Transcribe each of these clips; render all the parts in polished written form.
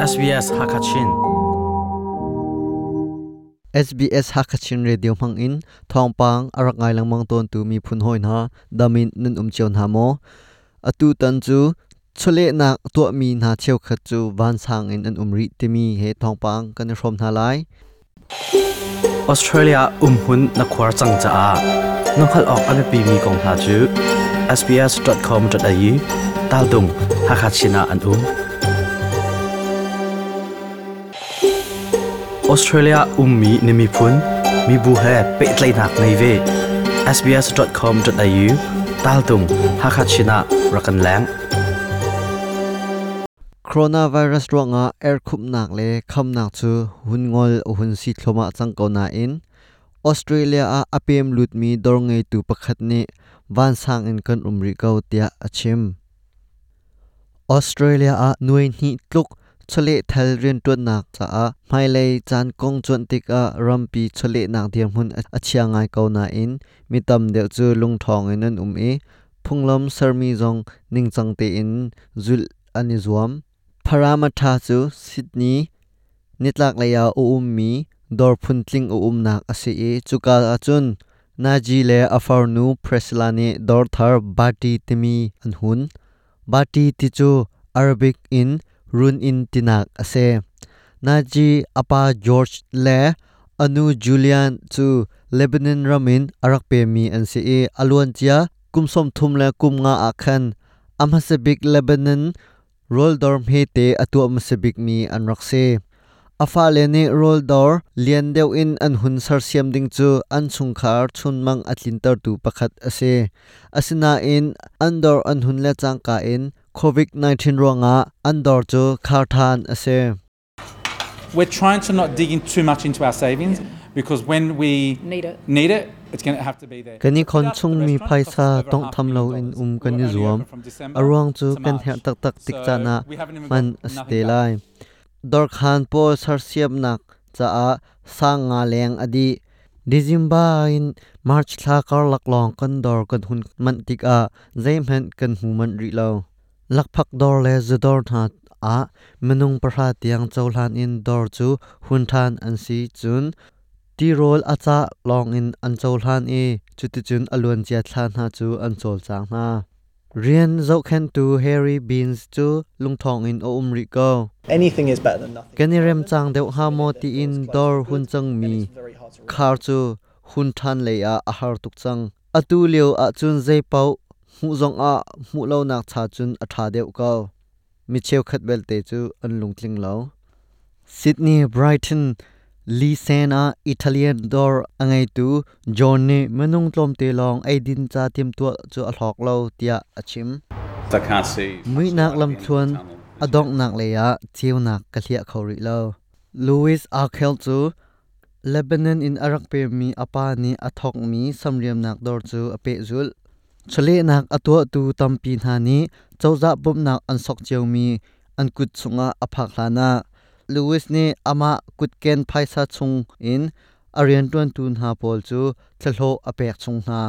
SBS Hakachin. SBS Hakachin Radio hmang in thawngpang a rak ngai lengmang tawntu miphun hawi hna damin nan um cio hna maw? Atu tan cu chawlehnak tuahmi hna cheukhat cu vansang in an um rih timi he thawngpang kan i hrawm hna lai. Australia umhun na khuar cang caah na hngalh awk a biapimi kong hna cu sbs.com.au taldung Hakachin ah an um. Australia ummi na miphun, mibu he pehtlaihnak ngei ve. sbs.com.au taltung Hakachin ah rak kan leng. Coronavirus ruangah erkhupnak le khamnak cu hun ngol a hun si thluahmah cang ko nain Australia ah a pem lutmi dawr ngeitu pakhat nih vansang in kan um rih ko tiah a chim. Australia ah nuai hnih tluk chawlehthal rianṭuannak caah hmailei caan kong cuanh tikah rampi chawlehnak dirhmun a chia ngai ko nain mi tam deuh cu lungṭhawng in an um i phunglam sermi zong ningcang tein zulh an i zuam. Parramatta cu Sydney nitlaklei ah a ummi dawr phuntling a umnak a si i cuka ahcun Naji le a farnu Priscilla nih dawr thar Bati timi an hun. Bati ti cu Arabic in run inn tinak a si. Naji a pa George le a nu Julian cu Lebanon ram in a rak pemmi an si i a luancia kum 35 ah khan a hmasa bik Lebanon rawldawr hmete a tuah hmasa bikmi an rak si. A fale nih rawldawr lian deuh in an hun sersiam ding cu an chungkhar chunmang a tlintertu pakhat a si. Asinain an dawr an hun le cangka in COVID-19 ruangah an dawr cu khar ṭhan a si. We're trying to not dig in too much into our savings because when we Need it. need it, it's going to have to be there. Kan i khon chungmi phaisa tawnghtham loin um kan i zuam. A ruang cu kan herh taktak tik caan ah hman a si te lai. Dawrkhan pawl sersiamnak caah sang nga leng a dih. December in March thla karlak lawng kan dawr kan hun manh tikah zeihmanh kan hmu manh rih lo. Lakphak dawr le zudawr hna ah minung 10 tiang cohlan in dawr cu hun ṭhan an si cun tirawl a cah lawngin an cohlan i cuticun a luancia thla hna cu an cawlcang hna. Rian zohkhenhtu Harry Beans cu lungṭhawng in a um rih ko. Anything is better than nothing. Kan i rem cang deuh hnga maw tiin dawr hun cangmi khar cu hun ṭhan lei ah a har tuk cang. Atu lio ahcun zeipaoh hmuh zongah hmuh lonak cha cun a ṭha deuh ko. Mi cheukhat belte cu an lungtling lo. Sydney Brighton Lisen ah Italian dawr a ngeitu John nih minung tlawmte lawng eidin ca timhtuah cu a hlawk lo tiah a chim. I can't see. Muihnak lamthluan a donghnak lei ah ceunak ka hliah kho rih lo. Louis Arkel cu Lebanon in a rak pemmi a pa nih a thawkmi samriamnak dawr cu a pehzulh. Chawlehnak a tuahtu tampi hna nih cozah bawmhnak an sok ciomi an kut chungah a phak hlanah Louis nih amah kutken phaisa chung in a rianṭuantu hna pawl cu thlahlawh a pek chung hna.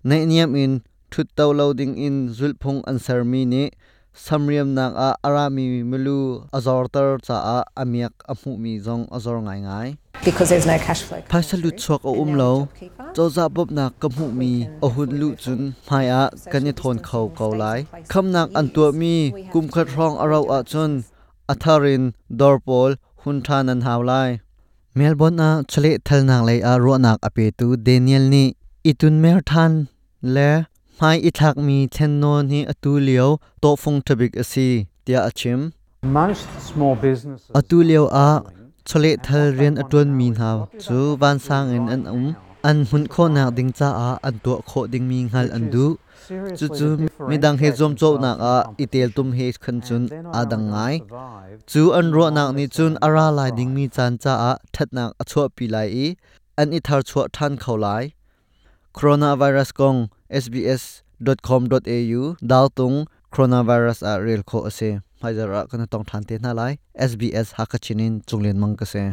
Naihniam in ṭhutto lo dingin zulhphung an sermi nih samriamnak ah a rami milu a zorter caah a miak a hmuhmi zong a zor ngaingai. Because there's no cash flow. coming Phaisa through. lutchuak a And um now lo. with JobKeeper, Cozah bawmhnak ka hmuhmi a hun luh cun hmaiah kan i thawn kho ko lai. Khamnak an tuahmi kumkhat hrawng a rauh ahcun a thar in dawr pawl hun ṭhan an hau lai. Melbourne ah chawlehthalnak lei ah ruahnak a petu Daniel nih i tunmer ṭhan le hmai i thlakmi thlennawn hi atu lio tawhfung ṭhabik a si tiah a chim. Most small businesses Atu lio ah chawlehthal And what they rian a want ṭuanmi now is hna what do cu they want to do vansang in right an um. now, An hmunh khawhnak ding caah an tuah khawh dingmi hngalh which an is duh. seriously Cucu to midang he differentiate zuamcawhnak themselves from ah i teltum competition. he khan cun And they're not aa only dang going to ngai. survive Cu an in the ruahnak longer nih cun term a ra and lai thrive. dingmi caan caah ṭhatnak a chuahpi lai i an i tharchuah ṭhan kho lai. Coronavirus kong sbs.com.au daltung coronavirus ah rel khawh a si. Hmaizarh ah kan i tong ṭhan te hna lai. SBS Hakachin in Cunglian Mang ka si.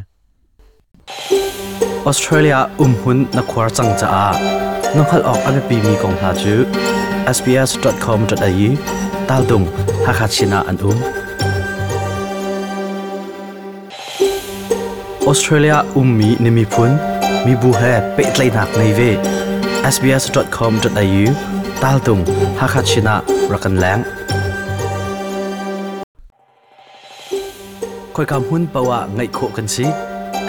Australia umhun na khuar cang caah na hngalh awk a biapimi kong hna cu sbs.com.au taltung Hakachin ah an um. Australia ummi na miphun, mibu he pehtlaihnak ngei ve. sbs.com.au taltung Hakha Chin ah rak kan leng. Khoika hmun paoh ah ngaih khawh kan si.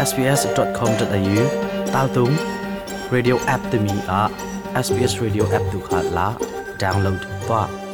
sbs.com.au taltung radio app timi ah SBS Radio app tu kha la download tuah.